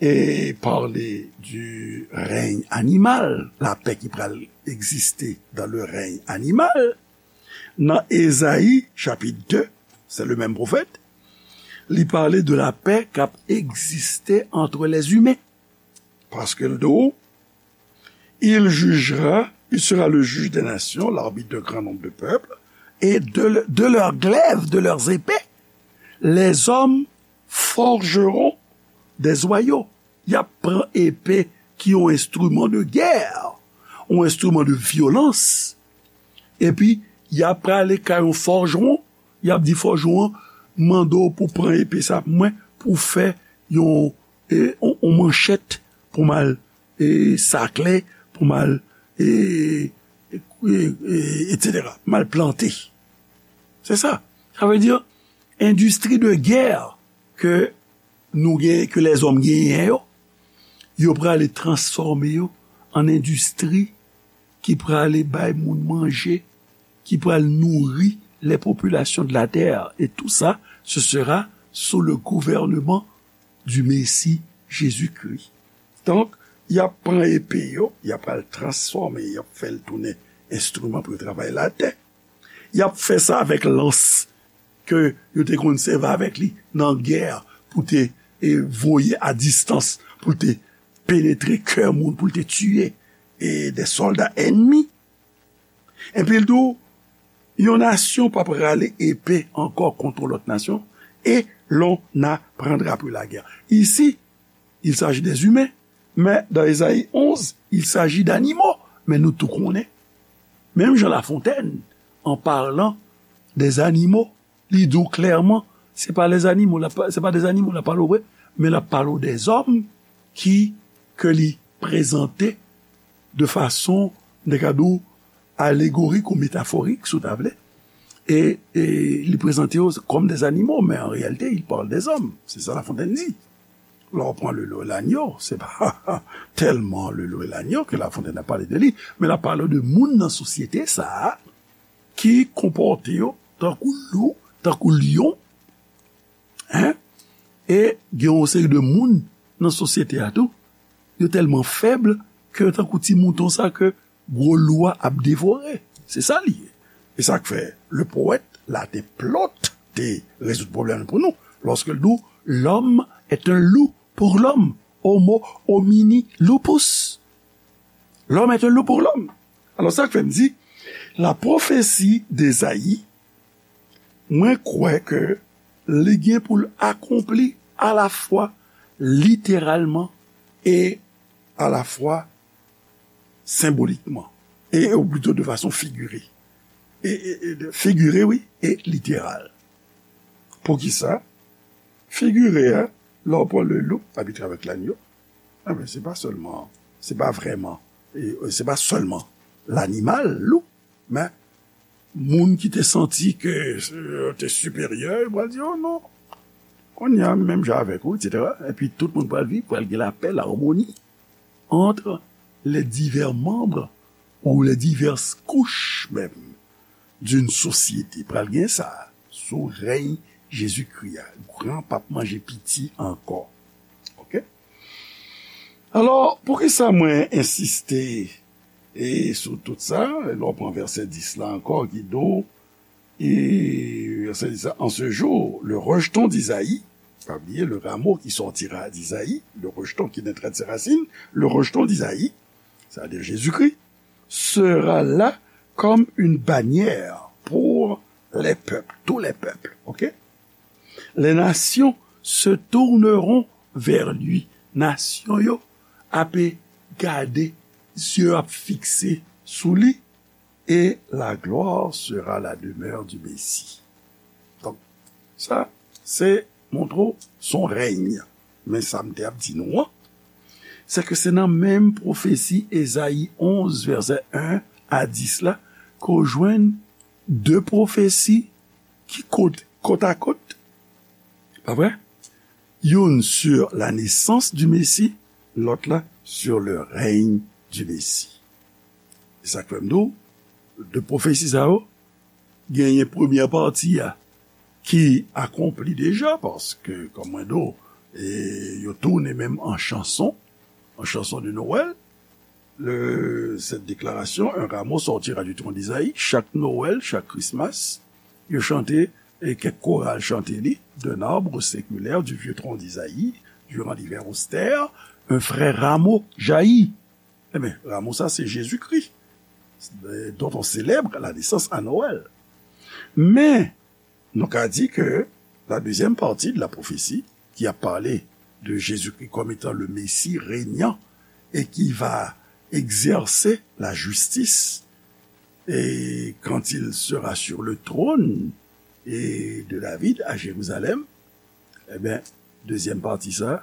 e pale du règne animal, lapè ki pral egziste dans le règne animal. Nan Ezayi, chapit de, c'est le même prophète, li pale de lapè k ap egziste entre les humains. Paske l di w, il jugera, il sera le juge des nations, l'arbitre d'un grand nombre de peuples, et de, de leurs glaives, de leurs épées, les hommes forgeront des joyaux. Y ap pran epe ki yon enstriman de gè, yon enstriman de vyolans, epi y ap prale kay yon fòjwon, y ap di fòjwon an, mande w pou pran epe sa pou mwen, pou fè yon, e, yon, yon manchèt pou m al, e, sakle, pou m al, e, e, e, e, etsetera, m al plante. Se sa. Sa vle di, endistri de gè ke nou gen, ke lèzòm genyen yo, yo prale transfòme yo an endistri ki prale bay moun manje, ki pral nouri les populations de la terre. Et tout ça, ce sera sous le gouvernement du Messie Jésus-Christ. Donk, y ap pran epe yo, y ap pral transfòme, y ap fè l tounen enstriman pou yo travay latè. Y ap fè sa avèk lans ke yo te konn sèvi avèk li nan gè pou te, e, voye a distans, pou te penetre kè moun pou l te tiye e de sòlda ènmi. Epi l di w, yon nasyon p ap rale epe ankò kont yon lòt nasyon, et l'on n'apprendra plus la guerre. Ici, il s'agit des humains, mais dans Ésaïe onze, il s'agit d'animaux. Men nou tou konnen, menm jan Lafontèn, an palan dèzanimo, li di w klèman, se pa lèzanimo, l ap, se pa dèzanimo l ap pale w vre, men l ap pale w dèzòm ki, ke li prezante de fason, m te ka di w, alegorik ou metaforik, si w ta vle. E, e li prezante yo kòm dèzanimo, men an reyalite, il parle des hommes. Se sa Lafontèn di. Lè w pran le loup et l'agneau, se pa tèlman le loup et l'agneau ke Lafontèn ap pale de li, men l ap pale de moun nan sosyete sa a ki konpòte yo tankou lou, tankou lyon, en, e gen yon seri de moun nan sosyete a tou, yo tèlman fèb ke yo tankou ti mouton sa ke gwo lou a ap devore. Se sa li ye. E sa k fè le powèt la te plot te rezoud pwoblèm pou nou. Lòske l di w, l'homme est un loup pour l'homme, homo homini lupus. L'homme est un loup pour l'homme. Alò, sa k fè m di, la prophétie d'Ésaïe, mwen kwè ke li gen pou l akonpli alafwa literalman e alafwa senbolikman, e, ou plito de fason figire. E, e, e de, figire, wi, e literal. Poukisa? Figire a, lè w pran le loup habite avec l'agneau, enben, se pa sèlman, se pa vrèman, e, se pa sèlman lanimal, lou, men moun ki te santi ke, e, te siperyè, yo pral di, "Oh non, kounye a, menm jan avèk ou, et cetera." Epi tout moun pral viv, pral gen lapè, larmoni entre les divers membres ou les diverses couches même d'une société. Pral gen sa sou rèy Jezikri a. Gran p ap manje piti ankò. Oke? Alò, poukisa mwen ensiste e sou tout sa? Lè w pran vèsè dis la ankò ki di w, e vèsè dis la, en ce jour, le rejeton d'Isaïe, pa bliye, le rameau qui sortira d'Isaïe, le rejeton qui naîtra de ses racines, le rejeton d'Isaïe, c'est-à-dire Jésus-Christ, sera là comme une bannière pour les peuples, tous les peuples, ok? Les nations se tourneront vers lui. Nasyon yo ape gade, zye yo ap fikse sou li, et la gloire sera la demeure du Messie. Donk, sa, se montre w son règne. Men sa m te ap di nou an, se ke se nan menm pwofesi Ezayi onz, vèsè en a dis la, ke w jwenn de pwofesi ki kot, kot a kot, pa vre? Youn sur la naissance du Messie, lòt la sur le règne du Messie. E sa k fè m di w, de pwofesi sa yo, genyen premyè pati a ki akonpli deja, paske, kòm mwen di w, e, yo tounen menm an chanson, an chanson de Noël, le, cette déclaration, un rameau sortira du tronc d'Isaïe, chak Nowèl, chak Krismas, yo chante, e kèk koral chante li, d'un arbre séculaire, du vieux tronc d'Isaïe, durant l'hiver austère, un frais rameau jaillit. Enben, rameau sa, se Jezikri, dont on célèbre la naissance à Noël. Men, nou ka di ke la deuxième partie de la prophétie, qui a parlé de Jésus-Christ comme étant le Messie régnant et qui va exercer la justice, et quand il sera sur le trône et de David à Jérusalem, enben, dezyèm pati sa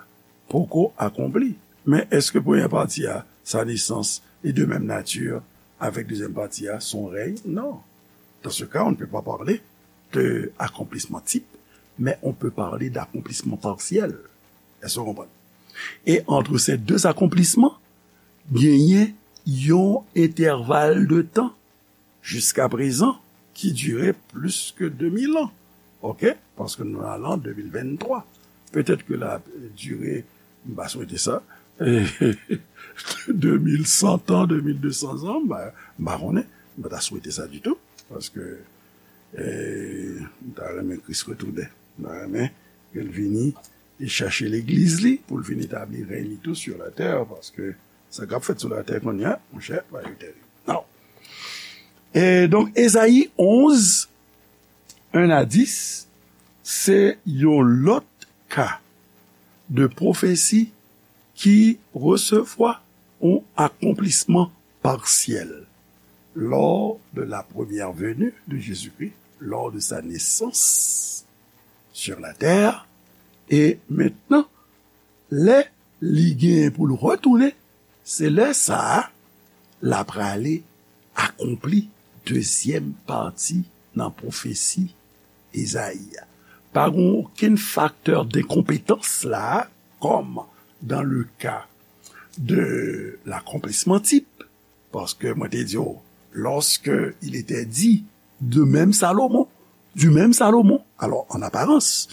poko akonpli. Men èske premyè pati a, sa nesans, est de même nature avec deuxième partie a, son règne? Non. Dans ce cas, on ne peut pas parler de accomplissement type, mais on peut parler d'accomplissement partiel. Èske w konprann? E entre ces deux accomplissements, genyen yon entèval de tan jiskaprezan ki dire plis ke de mil an. Oke? Paske nou ale an de mil venntwa. Petèt ke l ap dire, m pa swete sa, de mil san an, de mil de san an, m pa, m pa konnen, m pa ta swete sa ditou, paske, e, m ta renmen Kris retounen. M ta renmen ke l vini e chèche legliz li pou l vin etabli rèy li tou sou latè, paske sa k ap fèt sou latè kounye a, monchè, bagay yo terib. Non. E donk, Ezayi onz, en a dis, se yon lòt ka de pwofesi ki resevwa yon akonplisman parsyèl lors de la première venue de Jésus-Christ, lors de sa naissance sur la terre, e mentnan, lè li genyen pou l retounen, se lè sa a l ap prale akonpli dezyèm pati nan pwofesi Ezayi a. Pa gen okenn faktè denkonpetans la, comme dans le cas de l'accomplissement type, parce que mwen te di w, lorsque il était dit de même Salomon, du même Salomon, alors en apparence,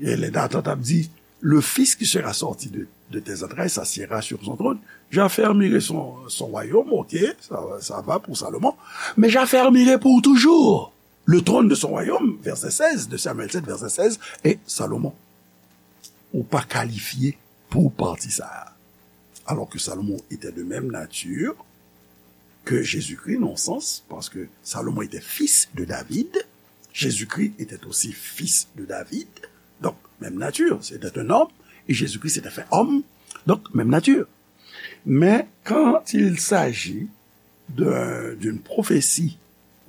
et les dates ap di, le fils qui sera sorti de, de tes entrailles s'assiera sur son trône, j'affermirai son, son royaume, ok, ça, ça va pour Salomon, mais j'affermirai pour toujours le trône de son royaume, verset seize, de Samuel sept, verset seize, et Salomon, ou pa kalifye pou pati sa a. Alors que Salomon était de même nature que Jésus-Christ, dans le sens, parce que Salomon était fils de David, Jésus-Christ était aussi fils de David, donc même nature, c'était un homme, et Jésus-Christ s'était fait homme, donc même nature. Mais quand il s'agit de, d'une prophétie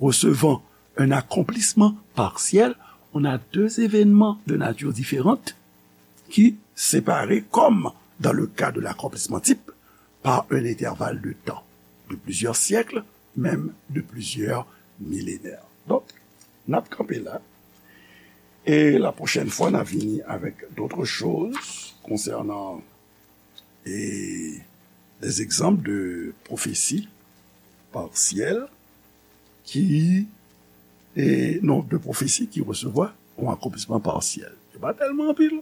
recevant un accomplissement partiel, on a deux événements de nature différente qui, séparés, comme dans le cas de l'accomplissement type, par un intervalle de temps de plusieurs siècles, même de plusieurs millénaires. Donc, n ap kanpe la. E la pwochèn fwa, n a vini avec d'autres choses concernant e des exemples de prophéties partielles qui, e non, de prophéties qui recevront un accomplissement partiel. Se pa tèlman anpil.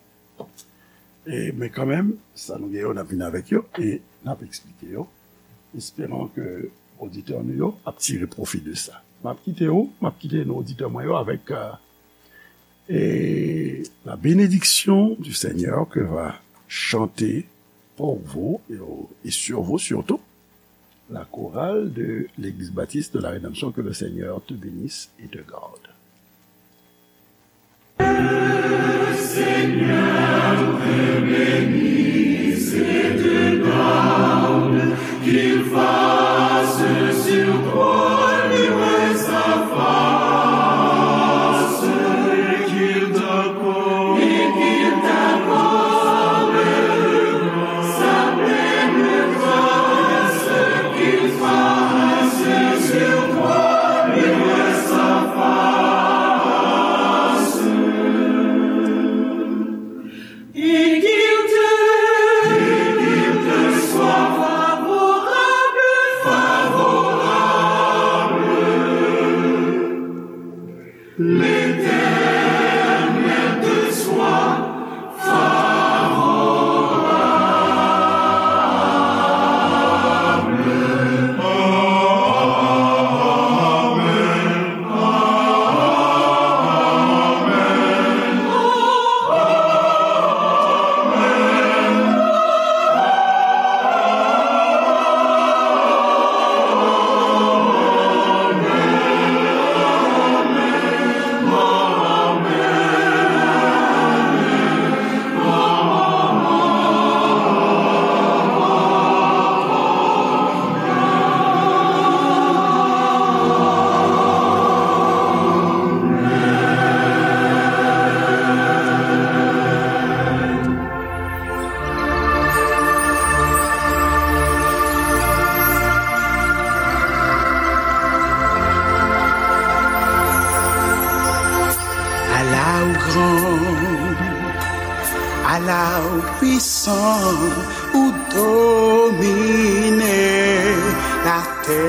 E, men kanmenm, sa nou gen yo, n ap vin avèk yo e n ap eksplike yo. Espérant que oditè nou yo ap tire pwofi de sa. M ap kite ou, m ap kite nou oditè mwen yo avèk, euh, et la bénédiction du Seigneur que va chanter pour vous et, au- et sur vous surtout la chorale de l'Église baptiste de la Rédemption. Que le Seigneur te bénisse et te garde. Et qu'il te, et qu'il te soit favorable, favorable. L'Éternel te soit favorable. Ala ou gran, ala ou pwisan, ou domine latè.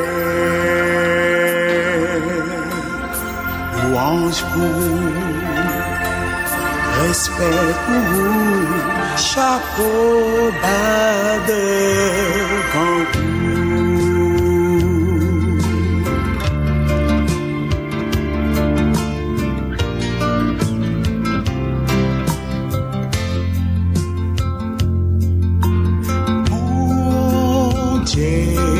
Lwanj pou ou, respè pou ou, chapo ba devan ou. Day.